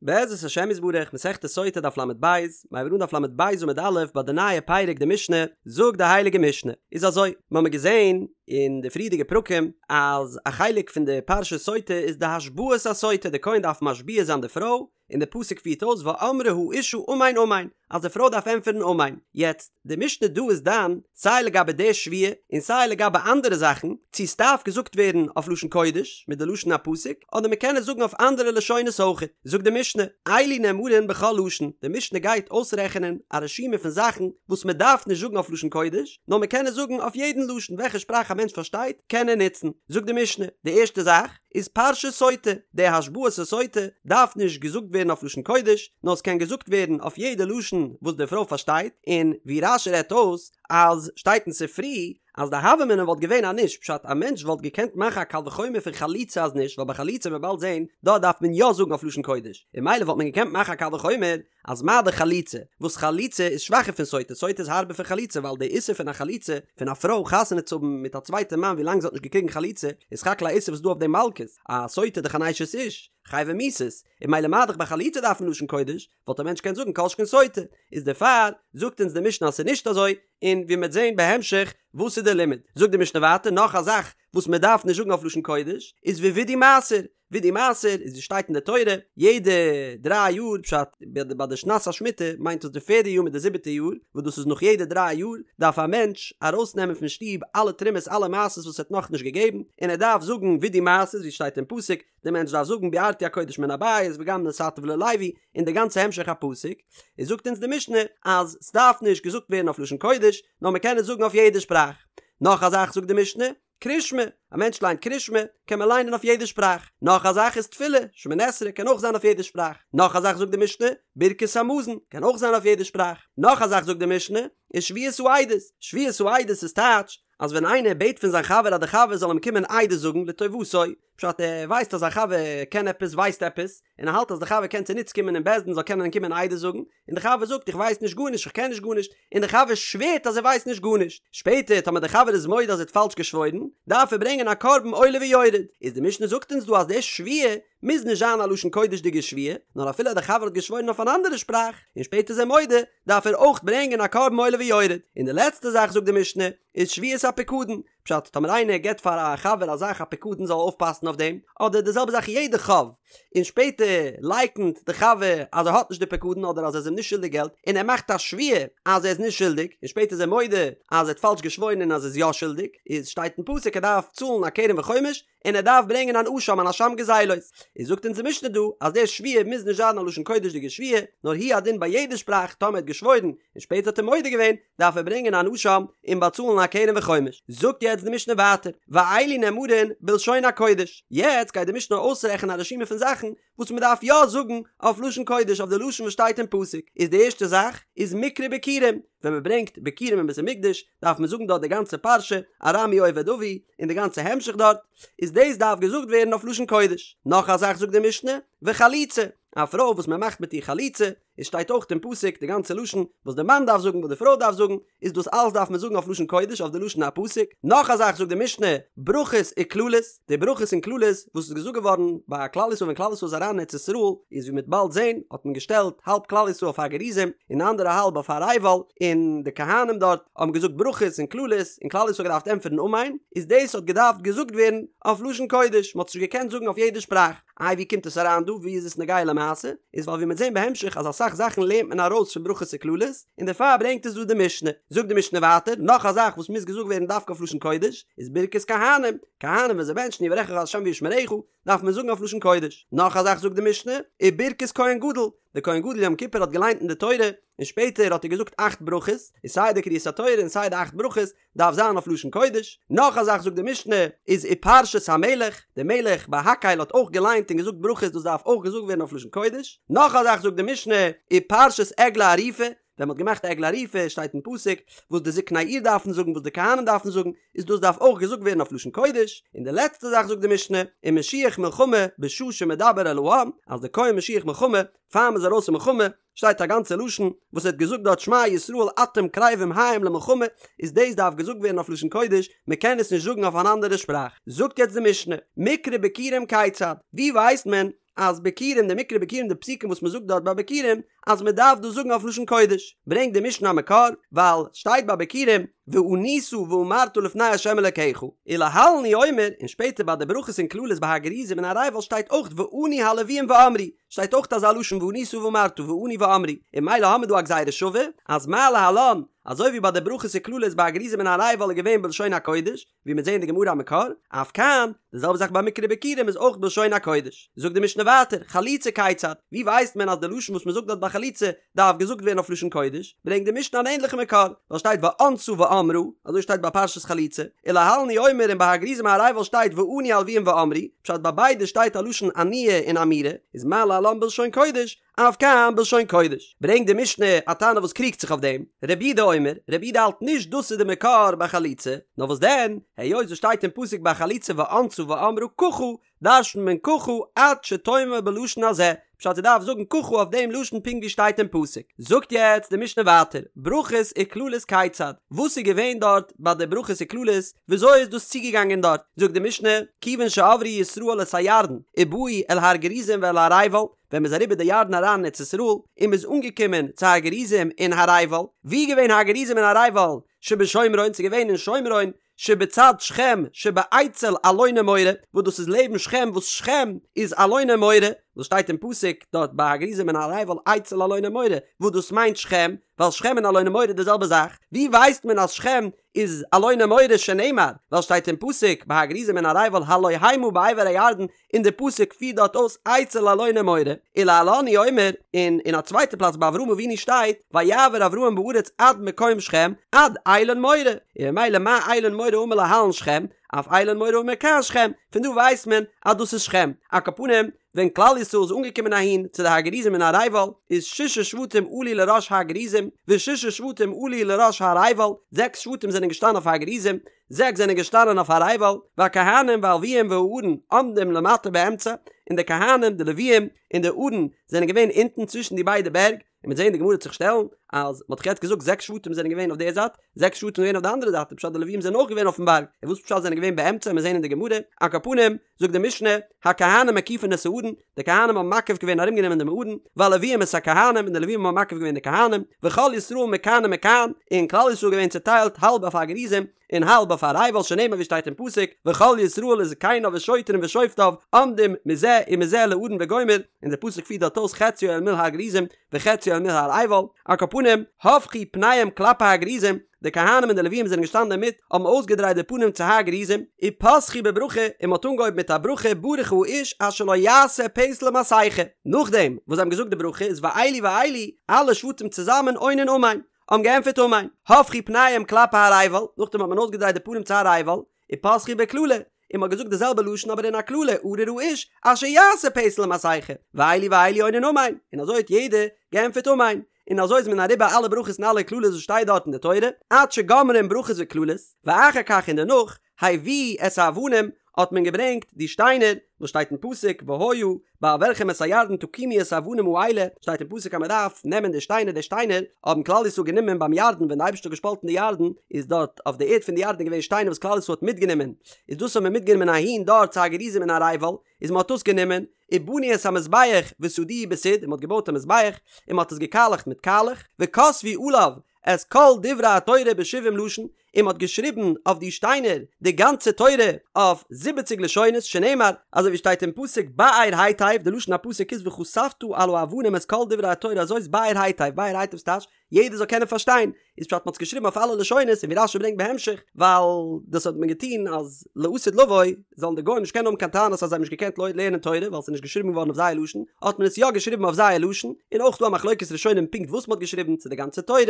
בעזרת השם יתברך, מסכת סוטה דף לב, מיר הייבן אן דף לב עמוד א' ביי די נייע פרק די משנה, זאגט די הייליגע משנה, איז אזוי, מיר האבן געזען אין די פריערדיגע פרקים אז א חלק פון די פרשת סוטה איז די השבעת הסוטה, די כהן דארף משביע זיין די פרוי, און די פסוק פירט אויס ואמרה האשה אמן אמן, אז די פרוי דארף ענטפערן אמן. יעצט, די משנה דא איז דן סיי לגבי די שבועה און סיי לגבי אנדערע זאכן, צו ס'דארף געזאגט ווערן אויף לשון קודש מיט די לשון הפסוק, אדער מ'קען עס זאגן אויף אנדערע לשונות אויכעט. זאגט די משנה, אלו נאמרין בכל לשון, די משנה גייט אויסרעכענען א רשימה פון זאכן וואס מ'דארף נישט זאגן אויף לשון קודש, נאר מ'קען עס זאגן אויף יעדן לשון, וועלכע שפראך א מענטש פארשטייט קען ער נוצן. זאגט די משנה, די ערשטע זאך, איז פרשת סוטה, די השבעת הסוטה דארף נישט געזאגט ווערן אויף לשון קודש, נאר עס קען געזאגט ווערן אויף יעדע לשון וואס די פרוי פארשטייט, און ווי רש"י רעדט אויס אז שטייט אין ספרי אז די הוה אמינא וואלט געווען אז נישט, פשט א מענטש וואלט געקענט מאכן א קל וחומר פון חליצה אז נישט, ווייל ביי חליצה וועט מען באלד זען דארט דארף מען יא זאגן אויף לשון קודש, און ממילא וואלט מען געקענט מאכן א קל וחומר אז מה דאך חליצה, וואס חליצה איז שוואכער פון סוטה, סוטה איז הארבער פון חליצה ווייל די איסור פון א חליצה, פון א פרוי חתונה צו האבן מיט א צווייטע מאן ווי לאנג זי האט נישט געקריגן חליצה, איז סך הכל א איסור וואס איז דא אויף דעם מלקות, א סוטה דאך אן אשת איש, חייבי מיתות, און ממילא מה דאך ביי חליצה דארף מען לשון קודש, וואלט א מענטש געקענט זאגן כל שכן סוטה, איז דערפאר זאגט אונז די משנה אז ס'איז נישט אזוי, און ווי מ'וועט זען בהמשך וואס איז די לימוד, זאגט די משנה ווייטער נאך א זאך וואס מ'דארף נישט זאגן אויף לשון קודש, איז ווידוי מעשר, וידוי מעשר איז ווי שטייט אין די תורה יעדע דריי יאר פשט ביי די שנת השמיטה מיינט דאס די פערדע יאר מיט די זיבעטע יאר וואס דאס איז נאך יעדע דריי יאר דארף א מענטש ארויסנעמען פון שטוב אלע תרומות אלע מעשרות וואס ער האט נאכנישט געגעבן און ער דארף זאגן וידוי מעשר ווי שטייט אין פסוק די מענטש דארף זאגן בערתי הקודש מן הבית וגם נתתיו ללוי און די גאנצע המשך הפסוק איז זאגט אונז די משנה אז סדארף נישט געזאגט ווערן אויף לשון קודש נאר מ'קען עס זאגן אויף יעדע שפראך נאך א זאך זאגט די משנה קרישמע, א מענטש ליינט קרישמע, קען מען ליינען אויף יעדע שפראך. נאך א זאך איז תפילה, שמונה עשרה קען אויך זיין אויף יעדע שפראך. נאך א זאך זאגט די משנה, ברכת המזון, קען אויך זיין אויף יעדע שפראך. נאך א זאך זאגט די משנה, איז שבועת העדות. שבועת העדות איז טייטש, אז ווען איינער בעט פון זיין חבר אז די חבר זאל אים קומען עדות זאגן לטובתו, פשט ער ווייסט אז זיין חבר קען עפעס ווייסט עפעס, און ער האלט אז די חבר קען צוניץ קומען אין בית דין זאל קענען קומען עדות זאגן, און די חבר זאגט איך ווייס נישט גארנישט איך קען נישט גארנישט, און די חבר שווערט אז ער ווייסט נישט גארנישט, שפעטער טאמער די חבר איז מודה אז ער האט פאלש געשוואוירן, דארף ער ברענגען א קרבן עולה ויורד, איז די משנה זאגט אונז דא אז די שבועה מוז נישט זיין א לשון קודש'דיגע שבועה, נאר אפילו אז די חבר האט געשוואוירן אויף אן אנדערע שפראך, און שפעטער איז ער מודה, דארף ער אויך ברענגען א קרבן עולה ויורד, און די לעצטע זאך זאגט די משנה, איז שבועת הפיקדון, פשט, טאמער איינער געבט פאר א חבר א זאך א פיקדון זאל אויפפאסן אויף דעם, אדער די זעלבע זאך יעדע חוב, און שפעטער לייקנט די חבר אז ער האט נישט די פיקדון אדער אז ער איז אים נישט שולדיג געלט, און ער מאכט א שבועה אז ער איז נישט שולדיג, און שפעטער איז ער מודה אז ער האט פאלש געשוואוירן און אז ער איז יא שולדיג, איז שטייט אין פסוק ער דארף צאלן א קרן וחומש, און ער דארף ברענגען אן אשם אן אשם גזילות. איז זאגט אונז די משנה דא אז די שבועה מוז נישט זיין א לשון קודש'דיגע שבועה, נאר הוא הדין ביי יעדע שפראך טאמער ער האט געשוואוירן און שפעטער האט ער מודה געווען, דארף ער ברענגען אן אשם און באצאלן א קרן וחומש. זאגט יעצט די משנה ווייטער, ואלו נאמרין בלשון הקודש. יעצט גייט די משנה אויסרעכענען א רשימה פון זאכן וואס מען דארף יא זאגן אויף לשון קודש אויף די לשון וואס שטייט אין פסוק. איז די ערשטע זאך איז מקרא ביכורים, ווען מען ברענגט ביכורים אין בית המקדש דארף מען זאגן דארט די גאנצע פרשה ארמי אובד אבי און די גאנצע המשך דארט, איז דאס דארף געזאגט ווערן אויף לשון קודש. נאך א זאך זאגט די משנה, וחליצה, א פרוי וואס מען מאכט מיט איר חליצה, עס שטייט אויך אין פסוק די גאנצע לשון וואס די מאן דארף זאגן וואס די פרוי דארף זאגן, איז דאס אלעס דארף מען זאגן אויף לשון קודש אויף די לשון הפסוק. נאך א זאך זאגט די משנה, ברכות וקללות, די ברכות און קללות וואס איז געזאגט געווארן ביי כלל ישראל ווען כלל ישראל איז אריין אין ארץ ישראל, איז ווי מ'וועט באלד זען האט מען געשטעלט האלב כלל ישראל אויף הר גריזים און די אנדערע האלב אויף הר עיבל, און די כהנים דארט האבן געזאגט ברכות און קללות און כלל ישראל האט געדארפט ענטפערן אמן, איז דאס האט געדארפט געזאגט ווערן אויף לשון קודש, מ'האט עס נישט געקענט זאגן אויף יעדע שפראך. איי ווי קומט עס אריין דא? ווי איז עס נוגע למעשה? איז ווייל ווי מ'וועט זען בהמשך אז אסאך זאכן לערנט מען ארויס פון ברכות וקללות, און דערפאר ברענגט עס דא די משנה. זאגט די משנה ווייטער, נאך א זאך וואס מוז געזאגט ווערן דווקא אויף לשון קודש, איז ברכת כהנים, כהנים ווען זיי בענטשן יברכך ה' וישמרך, דארף מען זאגן אויף לשון קודש. נאך א זאך זאגט די משנה, וברכת כהן גדול, דער כהן גדול יום כיפור האט געליינט אין די תורה, און שפעטער האט ער געזאגט אכט ברכות, איז סיי די קריאת התורה און סיי די אכט ברכות, דארף זיין אויף לשון קודש, נאך א זאך זאגט די משנה, איז ופרשת המלך, די מלך ביי הקהל האט אויך געליינט און געזאגט ברכות דאס דארף אויך געזאגט ווערן אויף לשון קודש, נאך א זאך זאגט די משנה, ופרשת עגלה ערופה, ווען מ'האט געמאכט עגלה ערופה שטייט אין פסוק וואס די זקני העיר דארפן זאגן וואס די כהנים דארפן זאגן, איז דאס דארף אויך געזאגט ווערן אויף לשון קודש, און די לעצטע זאך זאגט די משנה, ומשוח מלחמה בשעה שמדבר אל העם, אז די כהן משוח מלחמה פאר מ'איז ארויס אין מלחמה, שטייט א גאנצע לשון וואס ער האט געזאגט דארט שמע ישראל אתם קרבים היום למלחמה, איז דאס דארף געזאגט ווערן אויף לשון קודש, מען קען עס נישט זאגן אויף אן אנדערע שפראך. זאגט יעצט די משנה, מקרא ביכורים כיצד, ווי ווייסט מען אז ביכורים די מקרא ביכורים די פסוקים וואס מ'זאגט דארט ביי ביכורים אז מ'דארף דאס זאגן אויף לשון קודש, ברענגט די משנה א מקור, ווייל שטייט ביי ביכורים וענית ואמרת לפני ה' אלקיך, ולהלן הוא אומר, און שפעטער ביי די ברכות און קללות ביי הר גריזים און הר עיבל שטייט אויך וענו הלוויים ואמרו, שטייט אויך אזא לשון וענית ואמרת וענו ואמרו, און ממילא האמיר דא א גזירה שווה, אז מה להלן, אזוי ווי ביי די ברכות און קללות ביי הר גריזים און הר עיבל איז געווען בלשון הקודש, ווי מיר זעהן אין די גמרא א מקור, אף כאן, די זעלבע זאך ביי מקרא ביכורים איז אויך בלשון הקודש. זאגט די משנה ווייטער, חליצה כיצד, ווי ווייסט מען אז די לשון וואס מען זאגט דארט ביי חליצה דארף געזאגט ווערן אויף לשון קודש, ברענגט די משנה אן ענדליכע מקור, ווייל שטייט וענתה ואמרה, אזוי שטייט ביי פרשת חליצה, ולהלן הוא אומר און ביי הר גריזים הר עיבל שטייט וענו הלוויים ואמרו, פשט ביי ביידע שטייט א לשון עניה און אמירה, איז מה להלן בלשון קודש, אף כאן בלשון קודש. ברענגט די משנה א תנא וואס קריגט זיך אויף דעם, רבי יהודה אומר, רבי יהודה האלט נישט דאס איז די מקור ביי חליצה, נאר וואס דען, היות עס שטייט אין פסוק ביי חליצה וענתה ואמרה ככה, דרש'נט מען ככה עד שתאמר בלשון הזה, פשט זי דארף זאגן ככה אויף דעם לשון פונקט ווי שטייט אין פסוק. זאגט יעצט די משנה ווייטער, ברכות וקללות כיצד, וואס איז געווען דארט ביי די ברכות וקללות, וויאזוי איז דאס צוגעגאנגען דארט, זאגט די משנה, כיוון שעברו ישראל את הירדן ובאו אל הר גריזים ואל הר עיבל, ווען מ'איז אריבער די ירדן אריין אין ארץ ישראל, און מ'איז אנגעקומען צו הר גריזים און הר עיבל, וואו איז געווען הר גריזים און הר עיבל? שבשומרון, ס'איז געווען אין שומרון, שבצד שכם שבאצל אלוני מורה, וואס דאס איז לעבן שכם, וואס שכם איז אלוני מורה, וואס שטייט אין פסוק דארט ביי הר גריזים און הר עיבל אצל אלוני מורה, וואס דאס מיינט שכם, ווייל שכם און אלוני מורה איז די זעלבע זאך, ווי ווייסט מען אז שכם איז אלוני מורה שנאמר, ווייל שטייט אין פסוק ביי הר גריזים און הר עיבל הלא המה בעבר הירדן, און די פסוק פירט דארט אויס אצל אלוני מורה, ולהלן הוא אומר, און אין א צווייטע פלאץ ביי אברהם אבינו שטייט ויעבר אברהם בארץ עד מקום שכם עד אלון מורה, און ממילא מה אלון מורה האמור להלן שכם, אף אלון מורה האמור כאן שכם, פון דא ווייסט מען אז דאס איז שכם, על כל פנים ווען כלל ישראל איז אנגעקומען אהין צו די הר גריזים און הר עיבל, איז ששה שבטים עלו לראש הר גריזים, וששה שבטים עלו לראש הר עיבל, זעקס שבטים זענען געשטאנען אויף הר גריזים, זעקס זענען געשטאנען אויף הר עיבל, והכהנים והלוויים והארון עומדים למטה באמצע, און די כהנים, די לוויים, און די ארון זענען געווען אונטן צווישן די ביידע בערג, און מ'וועט זען די גמרא וועט זיך שטעלן אז מ'האט דאך יעצט געזאגט זעקס שבטים זענען געווען אויף די זייט, זעקס שבטים זענען געווען אויף די אנדערע זייט, איז פשט די לוויים זענען אויך געווען אויפן בארג, און וואס פשט זענען געווען באמצע, מיר זען אין די גמרא, על כל פנים, זאגט די משנה, הכהנים מקיפין את הארון, די כהנים האבן מקיף געווען ארומגענומען דעם ארון, והלוויים את הכהנים, און די לוויים האבן מקיף געווען די כהנים, וכל ישראל מכאן ומכאן, און כלל ישראל געווען צוטיילט האלב אויף הר גריזים, און האלב אויף הר עיבל שנאמר ווי שטייט אין פסוק, וכל ישראל וזקניו ושוטרים ושופטיו עומדים מזה ומזה לארון וגומר, און די פסוק פירט דארט אויס חציו אל מול הר גריזים וחציו אל מול הר עיבל, על כל פנים, הפכו פניהם כלפי הר גריזים, די כהנים און די לוויים זענען געשטאנען אינמיט, האבן אויסגעדרייט די פנים צו הר גריזים, ופתחו בברכה, און מען האט אנגעהויבן מיט א ברכה ברוך האיש אשר לא יעשה פסל ומסכה, נאכדעם וואס זיי האבן געזאגט די ברכה איז ואלו ואלו, אלע שבטים צוזאמען עונין אמן, האבן געענטפערט אמן, הפכו פניהם כלפי הר עיבל, נאכדעם האט מען אויסגעדרייט די פנים צו הר עיבל, ופתחו בקללה, און מ'האט געזאגט די זעלבע לשון אבער אין א קללה, ארור האיש אשר יעשה פסל ומסכה, ואלו ואלו עונין אמן, און אזוי האט יעדער געענטפערט אמן, און אזוי איז מען אריבער אלע ברכות און אלע קללות וואס שטייט דארט אין די תורה, עד שגומרים ברכות וקללות, ואחר כך און דערנאך, הביאו את האבנים, האט מען געברענגט די שטיינער, וואס שטייט אין פסוק, והיה בעברכם את הירדן תקימו את האבנים האלה, שטייט אין פסוק אז מען דארף נעמען די שטיינער, די שטיינער האבן כלל ישראל גענומען ביים ירדן ווען די אייבערשטער האט געשפאלטן די ירדן, איז דארט אויף די ערד פון די ירדן געווען שטיינער וואס כלל ישראל האט מיטגענומען, איז דאס האט מען מיטגענומען אהין דארט צו הר גריזים און הר עיבל, איז מען האט דאס גענומען, ובנו את המזבח וסדוהו בסיד, און מען האט געבויט א מזבח, און מען האט עס געקאלעכט מיט קאלעך, וכתבו עליו את כל דברי התורה בשבעים לשון, און מען האט געשריבן אויף די שטיינער די גאנצע תורה אויף זיבעציג לשונות, שנאמר, אזוי ווי שטייט אין פסוק באר היטב, די לשון הפסוק איז וכתבת על האבנים את כל דברי התורה הזאת באר היטב, באר היטב ס'טייטש יעדער זאל קענען פארשטיין, איז פשט מען האט עס געשריבן אויף אלע לשונות, און ווי רשי ברענגט בהמשך, ווייל דאס האט מען געטון אז לעתיד לבוא זאלן די גוים נישט קענען האבן קיין טענות אז זיי האבן נישט געקענט לערנען תורה ווייל ס'איז נישט געשריבן געווארן אויף זייער לשון, האט מען עס יא געשריבן אויף זייער לשון, און אויך דא א מחלוקת ראשונים פונקט וואס מען האט געשריבן, צו די גאנצע תורה,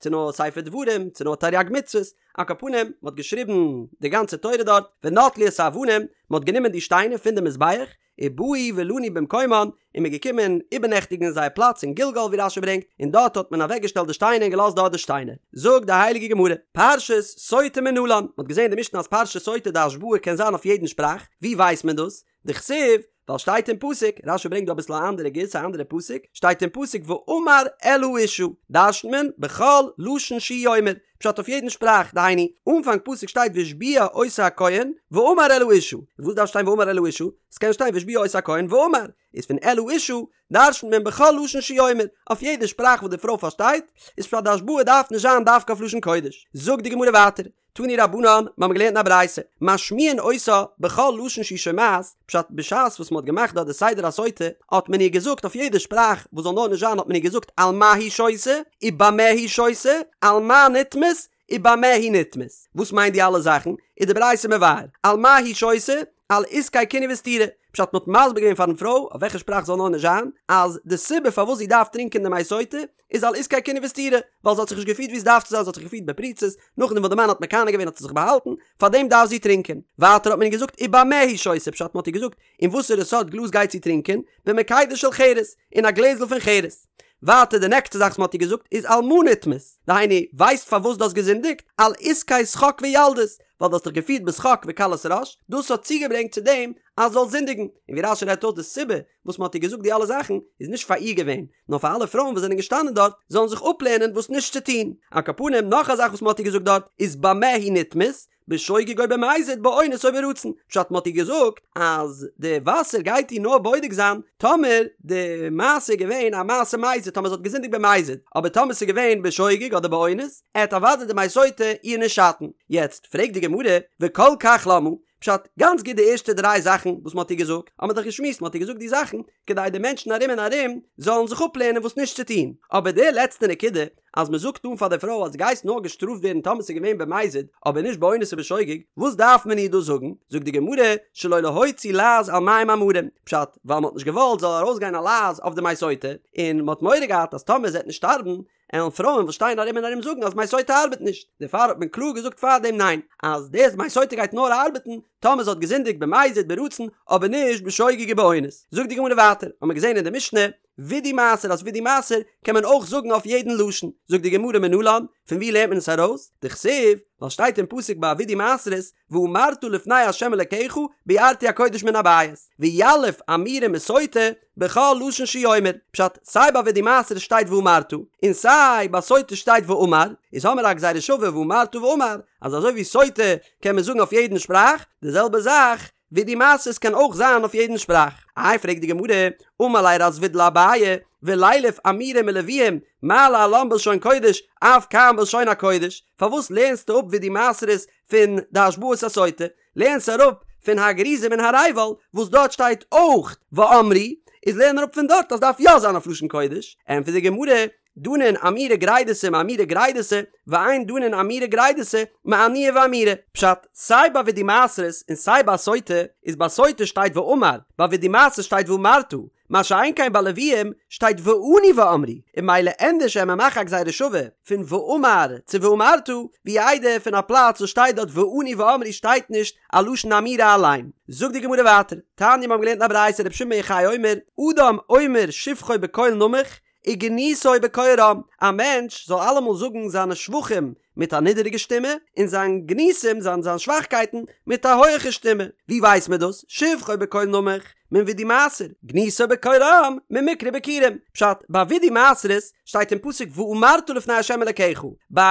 צו נאר ספר דברים, צו נאר תריג מצוות, על כל פנים, מען האט געשריבן די גאנצע תורה דארט, ונטלו את האבנים, מען האט גענומען די שטיינער פון די מזבח, ובאו ולנו במקומן, און מען איז געקומען איבערנעכטיגן אין זייער פלאץ אין גלגל ווי רשי ברענגט, און דארט האט מען אוועקגעשטעלט די שטיינער און געלאזט דארט די שטיינער. זאגט די הייליגע גמרא, פרשת סוטה מנלן, מען האט געזען אין די משנה אז פרשת סוטה די השבעה קען זיין אויף יעדן שפראך, ווי ווייסט מען דאס? דכתיב, ווייל שטייט אין פסוק, רשי ברענגט דא אביסל א אנדערע גירסא א אנדערע פסוק, שטייט אין פסוק ואמר אל האשה, דרש'נט מען בכל לשון שהוא אומר, פשט אויף יעדן שפראך, דהיינו, אנפאנג פסוק שטייט והשביע אותה הכהן, ואמר אל האשה, וואס דארף שטיין ואמר אל האשה? ס'קען שטיין והשביע אותה הכהן ואמר. איז פון אל האשה דרש'נט מען בכל לשון שהוא אומר, אויף יעדע שפראך וואס די פרוי פארשטייט, איז פשט די השבעה דארף נישט זיין דווקא אויף לשון קודש. זאגט די גמרא ווייטער, תנו רבנן, מיר האבן געלערנט אין א ברייתא, משמיעין אותה בכל לשון שהיא שומעת, פשט בשעת וואס מען האט געמאכט דארט די סדר הסוטה, האט מען איר געזאגט אויף יעדע שפראך וואס זאל נאר נישט זיין האט מען איר געזאגט על מה היא שותה, ובמה היא שותה, על מה נטמאת, ובמה היא נטמאת. וואס מיינט די אלע זאכן? איז די ברייתא מבאר, על מה היא שותה, על עסקי קינוי וסתירה, פשט מ'האט מסביר געווען פארן פרוי, אויף וועלכע שפראך זאל נאר נישט זיין, אז די סיבה פארוואס זי דארף טרינקען די מי סוטה, איז על עסקי קינוי וסתירה, ווייל זי האט זיך נישט געפירט ווי עס דארף צו זיין, זי האט זיך געפירט בפריצות, נאכדעם וואס די מאן האט מקנא געווען האט זי זיך באהאלטן, פארדעם דארף זי טרינקען. ווייטער האט מען איר געזאגט ובמה היא שותה, פשט מ'האט איר געזאגט אין וואסערע סארט גלאז גייט זי טרינקען, במקידה של חרס, אין א גלעזל פון חרס. ווייטער די נעקסטע זאך וואס מ'האט איר געזאגט איז על מה נטמאת, דהיינו, ווייסט פארוואס דו האסט געזינדיגט? על עסקי שחוק וילדות, ווייל דו האסט דיך געפירט בשחוק וקלות ראש, דאס האט צוגעברענגט צו דעם אז זאלסט זינדיגן. און ווי רש"י רעדט אויס די סיבה וואס מ'האט איר געזאגט די אלע זאכן איז נישט פאר איר געווען, נאר פאר אלע פרויען וואס זענען געשטאנען דארט זאלן זיך אפלערנען וואס נישט צו טון. על כל פנים נאך א זאך וואס מ'האט איר געזאגט דארט איז במה היא נטמאת, בשוגג או במזיד באונס או ברצון, פשט מ'האט איר געזאגט אז די וואסער גייט איר נאר בודק זיין טאמער די מעשה איז געווען א מעשה מזיד טאמער זי האט געזינדיגט במזיד, אבער טאמער ס'איז געווען בשוגג אדער באונס עט אוודאי די מי סוטה איר נישט שאטן. יעצט פרעגט די גמרא וכל כך למה, פשט, גאנץ גוט די ערשטע דריי זאכן וואס מ'האט איר געזאגט, האט מען דאך געשמועסט מ'האט איר געזאגט די זאכן כדי די מענטשן ארום און ארום זאלן זיך אפלערנען וואס נישט צו טון, אבער די לעצטע נקודה אז מ'זאגט אן פאר די פרוי אז דו גייסט נאר געשטראפט ווערן טאמער ס'איז געווען במזיד אבער נישט באונס ובשוגג, וואס דארף מען איר דאס זאגן? זאגט די גמרא, שלא להוציא לעז על מים המרים, פשט, ווייל מ'האט נישט געוואלט זאל ארויסגיין א לעז אויף די מי סוטה, און מ'האט מורא געהאט אז טאמער זי וועט נישט שטארבן, עלן פרויען וואס שטייען ארום און ארום זאגן אז מי סוטה ארבעט נישט, דערפאר האט מען קלאר געזאגט פארדעם ניין, אז דאס מי סוטה גייט נאר ארבעטן טאמער זי האט געזינדיגט במזיד ברצון אבער נישט בשוגג ובאונס. זאגט די גמרא ווייטער, האט מען געזען אין די משנה, וידוי מעשר אז וידוי מעשר קען מען אויך זאגן אויף יעדן לשון, זאגט די גמרא מנלן, פון ווי לערנט מען עס ארויס? דכתיב, ווייל שטייט אין פסוק ביי וידוי מעשרות, ואמרת לפני ה' אלקיך ביערתי הקודש מן הבית, ויליף אמירה מסוטה בכל לשון שהוא אומר, פשט, סיי ביי וידוי מעשרות שטייט ואמרת, און סיי ביי סוטה שטייט ואמר, איז האמיר א גזירה שווה ואמרת ואמר, אז אזוי ווי סוטה קען מען זאגן אויף יעדן שפראך, די זעלבע זאך וידוי מעשרות קען אויך זיין אויף יעדן שפראך. איי פרעגט די גמרא, אמר ליה רב זביד לאביי, ולילף אמירה מלוויים, מה להלן בלשון קודש, אף כאן בלשון הקודש, פארוואס לערנסטו אפ וידוי מעשרות פון די השבעת הסוטה, לערנסט אראפ פון הר גריזים און הר עיבל וואס דארט שטייט אויך ואמרו, איז לערן אראפ פון דארט אז דארף יא זיין אויף לשון קודש, ענטפערט די גמרא, דנין אמירה גרידתא מאמירה גרידתא, ואין דנין אמירה גרידתא מענייה ואמירה. פשט, סיי ביי וידוי מעשרות און סיי ביי סוטה, איז ביי סוטה שטייט ואמר, ביי וידוי מעשרות שטייט ואמרת, מה שאין כן ביי לוויים שטייט וענו ואמרו, און ממילא ענדערש וועט מען מאכן א גזירה שווה פון ואמר צו ואמרת, ווי איידער פון א פלאץ וואס שטייט דארט וענו ואמרו שטייט נישט א לשון אמירה אליין. זאגט די גמרא ווייטער, תניא מיר האבן געלערנט אין א ברייתא רבי שמעון בן יוחאי אומר, אדם אומר שבחו בקול נמוך, וגנותו בקול רם, א מענטש זאל אלעמאל זאגן זיינע שבחים מיט א נידעריגע שטימע, און זיין גנותים, זיין זיין שוואכקייטן, מיט א הויעכע שטימע. ווי ווייסט מען דאס? שבחו בקול נמוך, מן וידוי מעשר, גנותו בקול רם, ממקרא ביכורים. פשט, ביי וידוי מעשרות שטייט אין פסוק ואמרת לפני ה' אלקיך, ביי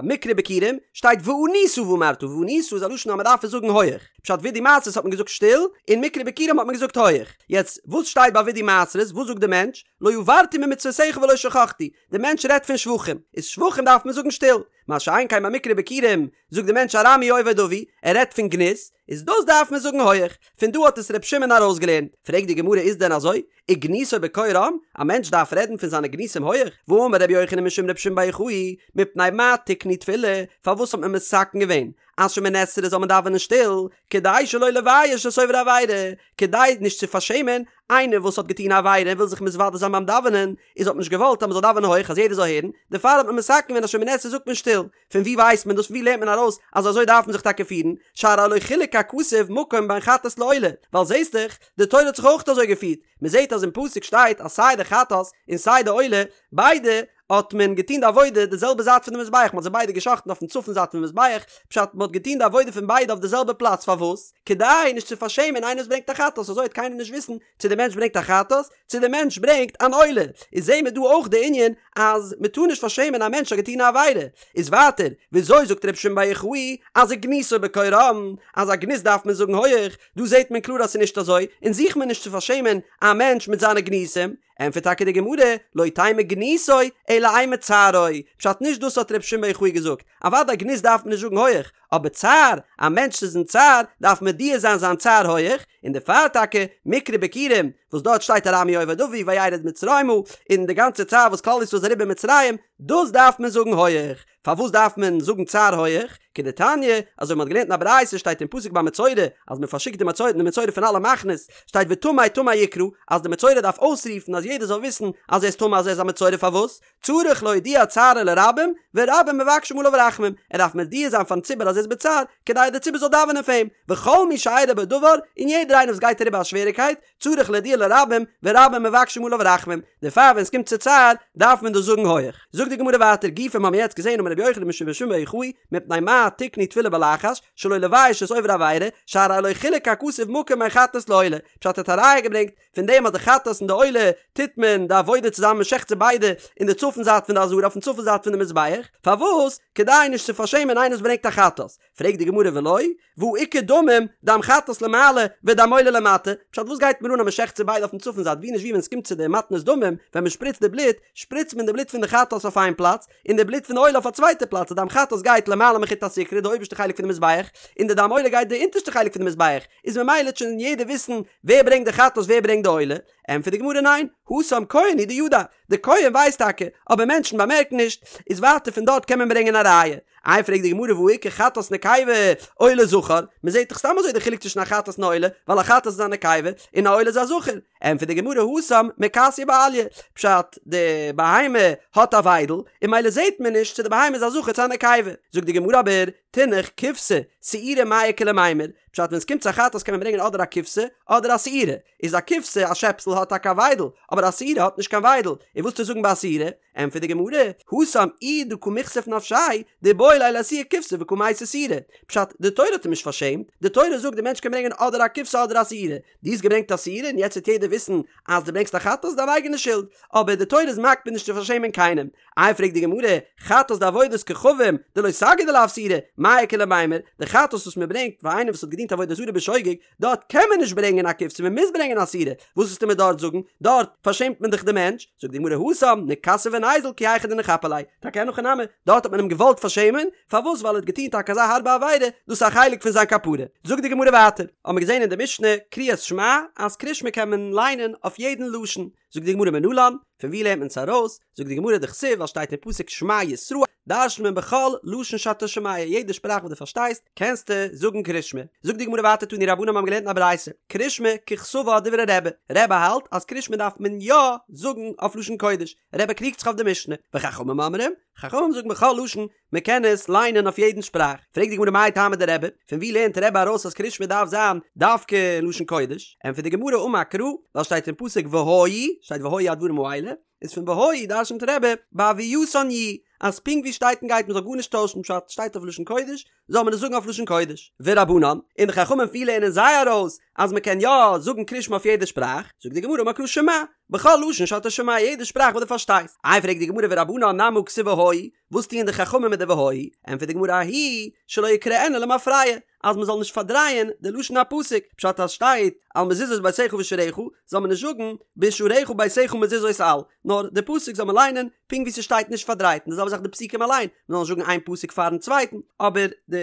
מקרא ביכורים שטייט וענית ואמרת, וענית איז א לשון אז מען דארף עס זאגן הויעך. פשט וידוי מעשרות האט מען געזאגט שטיל, און מקרא ביכורים האט מען געזאגט הויעך. יעצט, וואס שטייט ביי וידוי מעשרות? וואס זאגט די מענטש? לא עברתי ממצוותיך ולא שכחתי, די מענטש רעדט פון שבחים, איז שבחים דארף מען זאגן שטיל, מה שאין כן ביי מקרא ביכורים, זאגט די מענטש ארמי אובד אבי, ער רעדט פון גנות, איז דאס דארף מען זאגן הויעך, פון דא האט עס ר' שמעון ארויסגעלערנט, פרעגט די גמרא איז דען אזוי, וגנותו בקול רם, א מענטש דארף רעדן פון זיינע גנותים הויעך, והאמר רבי יוחנן משום רבי שמעון בר יוחאי, מפני מה תקנו תפילה, פארוואס האט מען מתקן געווען אז שמונה עשרה זאל מען דאווענען שטיל, כדי שלא לבייש את עובר עבירה, כדי נישט צו פארשעמען איינער וואס האט געטון א עבירה און וויל זיך מתוודה זיין ביים דאווענען, איז האט מען נישט געוואלט אז מען זאל דאווענען הויך אז יעדער זאל הערן, דערפאר האט מען מתקן געווען אז שמונה עשרה זאגט מען שטיל. פון וואו ווייסט מען דאס? פון וואו לערנט מען ארויס אז אזוי דארף מען זיך טאקע פירן? שהרי לא חילק הכתוב מקום בין חטאת לעולה, ווייל זעסט דאך, די תורה האט זיך אויך אזוי געפירט, מען זעט אז אין פסוק שטייט אז סיי די חטאת און סיי די עולה, ביידע. האט מען געטון די עבודה די זעלבע זייט פון די מזבח, מען האט זיי ביידע גע'שחט'ן אויפן צפון זייט פון מזבח, פשט מען האט געטון די עבודה פון ביידע אויף די זעלבע פלאץ, פארוואס? כדי נישט צו פארשעמען איינער וואס ברענגט א חטאת, אזוי וועט קיינער נישט וויסן צו די מענטש ברענגט א חטאת, צו די מענטש ברענגט אן עולה, איז זעהן מיר דא אויך די ענין אז מען טאר נישט פארשעמען א מענטש האט געטון א עבירה, איז ווייטער וויאזוי זאגט רבי שמעון בר יוחאי אז וגנותו בקול רם, אז א גנות דארף מען זאגן הויעך, דא זעהט מען קלאר אז ס'איז נישט אזוי, און זוכט מען נישט צו פארשעמען א מענטש מיט זיינע גנותים, ענטפערט טאקע די גמרא, לא תימא גנותו אלא אימא צערו, פשט נישט דאס האט רבי שמעון בר יוחאי געזאגט, אוודאי גנות דארף מען נישט זאגן הויעך, אבער צער, א מענטש איז אין צער, דארף מודיע זיין זיין צער הויעך, און דערפאר טאקע, מקרא ביכורים, וואס דארט שטייט ארמי אובד אבי וירד מצרימה, און די גאנצע צער וואס כלל ישראל איז אריבער מצרים, דאס דארף מען זאגן הויעך. פארוואס דארף מען זאגן צער הויעך? כדתניא, אזוי ווי מ'האט געלערנט אין א ברייתא שטייט אין פסוק ביי מצורע, אז מען פארשיקט די מצורע די מצורע פון אלע מחנות, שטייט וטמא טמא יקרא, אז די מצורע דארף אויסרופן אז יעדער זאל וויסן אז ער איז טמא אז ער איז א מצורע פארוואס? צריך להודיע צערו לרבים, ורבים מבקשים עליו רחמים, ער דארף מודיע זיין פארן ציבור אז ער איז בצער, כדי דער ציבור זאל דאווענען פאר אים, וכל מי שאירע בו דבר, און יעדער איינער וואס גייט אריבער א שוועריקייט, צריך להודיע לרבים, ורבים מבקשים עליו רחמים, דערפאר ווען עס קומט צו צער, דארף מען דאס זאגן הויעך. זאגט די גמרא ווייטער, גופא מ'האמיר יעצט געזען אמר רבי יוחנן משום רבי שמעון בר יוחאי, מפני מה תקנו תפילה בלחש, שלא לבייש את עובר עבירה, שהרי לא חילק הכתוב מקום בין חטאת לעולה, פשט האט א ראיה געברענגט, פון דעם אז די חטאת און די עולה טוט מען די עבודה צוזאמען מען שעכט זיי ביידע אין די צפון זייט פון די עזרה אויפן צפון זייט פון די מזבח, פארוואס? כדי נישט צו פארשעמען איינער וואס ברענגט א חטאת. פרעגט די גמרא ולא, והא איכא דמים, דם חטאת למעלה ודם עולה למטה, פשט וואס גייט מיר אן אז מען שעכט זיי ביידע אויפן צפון זייט ווי נישט ווי ווען עס קומט צו די מתנות דמים ווען מען שפריצט די בלוט שפריצט מען די בלוט פון די חטאת אויף איין פלאץ און די בלוט פון די עולה אויף א צווייטע פלאץ די דם חטאת גייט למעלה מחוט הסיקרא די אויבערשטע חלק פון די מזבח און די דם עולה גייט די אונטערשטע חלק פון די מזבח איז ממילא וועט שוין יעדער וויסן ווער ברענגט די חטאת ווער ברענגט די עולה, ענטפערט די גמרא ניין, התם כהן הוא דידע, די כהן ווייסט טאקע, אבער מענטשן באמערקן נישט, איז ווייטער פון דארט קען מען ברענגען א ראיה. איי פרעגט די גמרא והא איכא חטאת נקבה עולה זכר, מען זעט דאך סתם אזוי די חילוק צווישן א חטאת און א עולה, ווייל א חטאת איז א נקבה און א עולה איז א זכר, ענטפערט די גמרא התם מכסיא באליה, פשט די בהמה האט א וויידל, און ממילא זעט מען נישט צו די בהמה איז א זכר צו א נקבה, זאגט די גמרא אבער, תינח כבשה, שעירה מאי איכא למימר, פשט ווען עס קומט צו א חטאת קען מען ברענגען אדער א כבשה אדער א שעירה, איז א כבשה א שעפסל האט טאקע א וויידל, אבער א שעירה האט נישט קיין וויידל, און וואס וועסטו זאגן ביי א שעירה? ענטפערט די גמרא, התם איהו דקא מיכסיף נפשיה, דאיבעי ליה לאיתויי כבשה וקא מייתי שעירה, פשט, די תורה האט אים נישט פארשעמט, די תורה זאגט די מענטש קען ברענגען אדער א כבשה אדער א שעירה, דו האסט געברענגט א שעירה און יעצט וועט יעדער וויסן אז דו ברענגסט א חטאת, דיין אייגענע שולד, אבער די תורה איז מקפיד נישט צו פארשעמען קיינעם, איי פרעגט די גמרא, חטאת דעבודת כוכבים, דלא סגי דלאו שעירה, מאי איכא למימר, די חטאת וואס מען ברענגט פאר איינער וואס האט געדינט עבודה זרה בשוגג, דארט קען מען נישט ברענגען א כבשה מען מוז ברענגען א שעירה, וואס וועסטו מיר דארט זאגן, דארט פארשעמט מען דאך די מענטש, זאגט די גמרא התם, נכסי וניזיל כי היכי דניכפיה ליה, טאקע אין הכי נמי, דארט האט מען אים געוואלט פארשעמען, פארוואס ווייל ער האט געטון טאקע אזא הארבע עבירה, דאס איז א חלק פון זיין כפרה. זאגט די גמרא ווייטער, האבן מיר געזען אין די משנה, קריאת שמע, אז קריאת שמע קען מען ליינען אויף יעדן לשון, זאגט די גמרא מנלן, פון ווי לערנט מען עס ארויס? זאגט די גמרא דכתיב ווייל שטייט אין פסוק שמע ישראל, דרש'נט מען בכל לשון שאתה שומע, יעדע שפראך וואס דו פארשטייסט קענסטו זאגן קריאת שמע. זאגט די גמרא ווייטער תנו רבנן מיר האבן געלערנט אין א ברייתא, קריאת שמע ככתבה דברי רבי, רבי האלט אז קריאת שמע דארף מען יא זאגן אויף לשון קודש, רבי קריגט זיך אויף די משנה, וחכמים אומרים, חכמים זאגן בכל לשון, מען קען עס ליינען אויף יעדן שפראך. פרעגט די גמרא מאי טעמא דרבי, פון ווי לערנט רבי ארויס אז קריאת שמע דארף זיין דווקא אין לשון קודש? ענטפערט די גמרא אמר קרא, ווייל שטייט אין פסוק והיו, שטייט והיו הדברים האלה, איז פון והיו דרשנ'ט רבי בהוייתן יהו, אז פונקט ווי שטייט און גייט מען זאל גארנישט טוישן פשט שטייט אויף לשון קודש, זאל מען עס זאגן אויף לשון קודש. ורבנן, און די חכמים ווי לערנען זיי ארויס אז מען קען יא זאגן קריאת שמע אויף יעדע שפראך, זאגט די גמרא אמר קרא שמע, בכל לשון שאתה שומע יעדע שפראך וואס דו פארשטייסט. איי פרעגט די גמרא ורבנן נמי הא כתיב והיו, וואס טוען די חכמים מיט די והיו? ענטפערט די גמרא ההוא שלא יקראנה למפרע, אז מען זאל נישט פארדרייען די לשון הפסוק, פשט אז שטייט על מזוזות ביתך ובשעריך, זאל מען נישט זאגן בשעריך ביתך מזוזות על, נאר די פסוק זאל מען ליינען פונקט ווי ס'שטייט נישט פארדרייט, און די זעלבע זאך די פסוקים אליין, מען זאל נישט זאגן איין פסוק פארן צווייטן, אבער די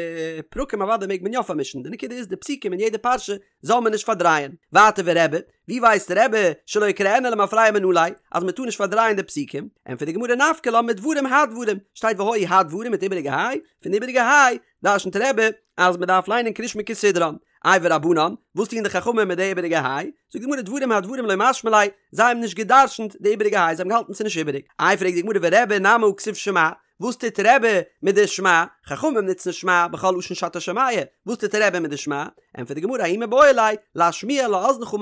פרקים אוודאי מעג מען יא פארמישן, די נקודה איז די פסוקים אין יעדע פרשה זאל מען נישט פארדרייען. ווייטער ורבי, ווי ווייסט רבי שלא יקראנה למפרע מנא ליה, אז מען טאר נישט פארדרייען די פסוקים? ענטפערט די גמרא נפקא לה מדברים הדברים, שטייט והיו הדברים מיט איבעריגע היי, פון די איבעריגע היי דרשנ'ט רבי אז מען דארף ליינען קריאת שמע כסדרן. איי ורבנן, וואס טוען די חכמים מיט די איבעריגע היי? זאגט די גמרא דברים הדברים לא משמע ליה, זיי האבן נישט גע'דרשנ'ט די איבעריגע היי, זיי האבן געהאלטן ס'איז נישט איבעריג. איי פרעגט די גמרא ורבי נמי הא כתיב שמע, וואס טוט רבי מיט די שמע? חכמים נוצן שמע בכל לשון שאתה שומע, וואס טוט רבי מיט די שמע? ענטפערט די גמרא ההוא מיבעי ליה להשמיע לאזנך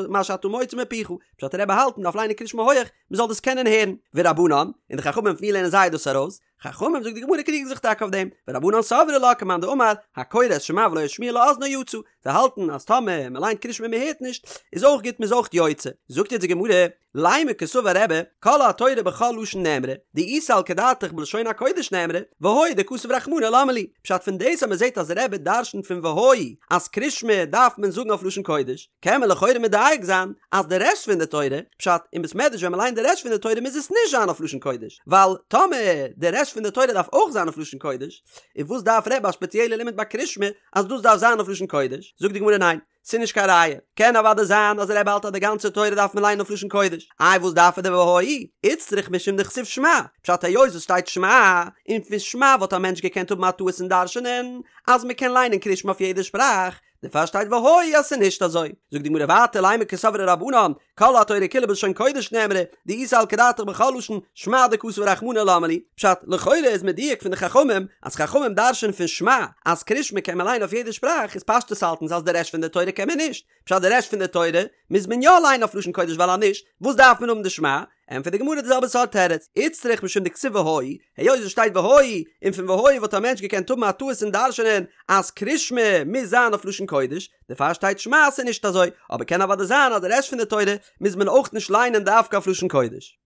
מה שאתה מוציא מפיך, פשט רבי האלט מ'דארף ליינען קריאת שמע הויעך מ'זאל דאס קענען הערן, ורבנן, און די חכמים פון ווי לערנען זיי דאס ארויס? חכמים זאגט די גמרא קריגן זיך טאקע אויף דעם, ורבנן סברי לה כמאן דאמר, הקורא את שמע ולא השמיע לאזנו יצא, זיי האלטן אז טאמער מען ליינט קריאת שמע און מען הערט נישט, איז אויך גוט מען איז אויך יוצא. זאגט יעצט די גמרא, לימא קסבר רבי, כל התורה בכל לשון נאמרה, דאי סלקא דעתך בלשון הקודש נאמרה, והיה דכתב רחמנא למה לי, פשט פון דאס אז מען זעט אז רבי דרשנ'ט פון והיה אז קריאת שמע דארף מען זאגן אויף לשון קודש, קען מען לכאורה מדייק זיין אז די רעשט פון די תורה, פשט, אין בית מדרש ווען מען ליינט די רעשט פון די תורה מוז עס נישט זיין אויף לשון קודש, ווייל טאמער די רעשט פון די תורה דארף אויך זיין אויף לשון קודש, און וואס דארף רבי א ספעציעלע לימוד ביי קריאת שמע אז דאס דארף זיין אויף לשון קודש? זאגט די גמרא ניין, ס'איז נישט קיין ראיה, קען אוודאי זיין אז רבי האלט אז די גאנצע תורה דארף מען ליינען אויף לשון קודש, איי וואס דארף ער די והיה? איצטריך משום דכתיב שמע, פשט היות עס שטייט שמע, און פון שמע וואלט א מענטש געקענט האבן א טעות און דרש'נען אז מען קען ליינען קריאת שמע אויף יעדע שפראך, דערפאר שטייט והיה אז ס'איז נישט אזוי. זאגט די גמרא ווייטער לימא קסברי רבנן, כל התורה כולה בלשון קודש נאמרה, דאי סלקא דעתך בכל לשון, שמע דכתב רחמנא למה לי. פשט, לכאורה איז מדויק פון די חכמים, אז חכמים דרש'ענען פון שמע, אז קריאת שמע קען מען ליינען אויף יעדע שפראך, איז פשטות האלטן זיי אז די רעשט פון די תורה קען מען נישט. פשט די רעשט פון די תורה מוז מען יא ליינען אויף לשון קודש ווייל אז נישט, וואס דארף מען האבן די שמע? ענטפערט די גמרא די זעלבע סארט תירוץ, איצטריך משום דכתיב והיה, היות עס שטייט והיה, און פון והיה וואלט א מענטש געקענט האבן א טעות און דרש'נען אז קריאת שמע מוז זיין אויף לשון קודש, דערפאר שטייט שמע אז ס'איז נישט אזוי, אבער קען אוודאי זיין אז די רעשט פון די תורה מוז מען אויך נישט ליינען דווקא אויף לשון קודש.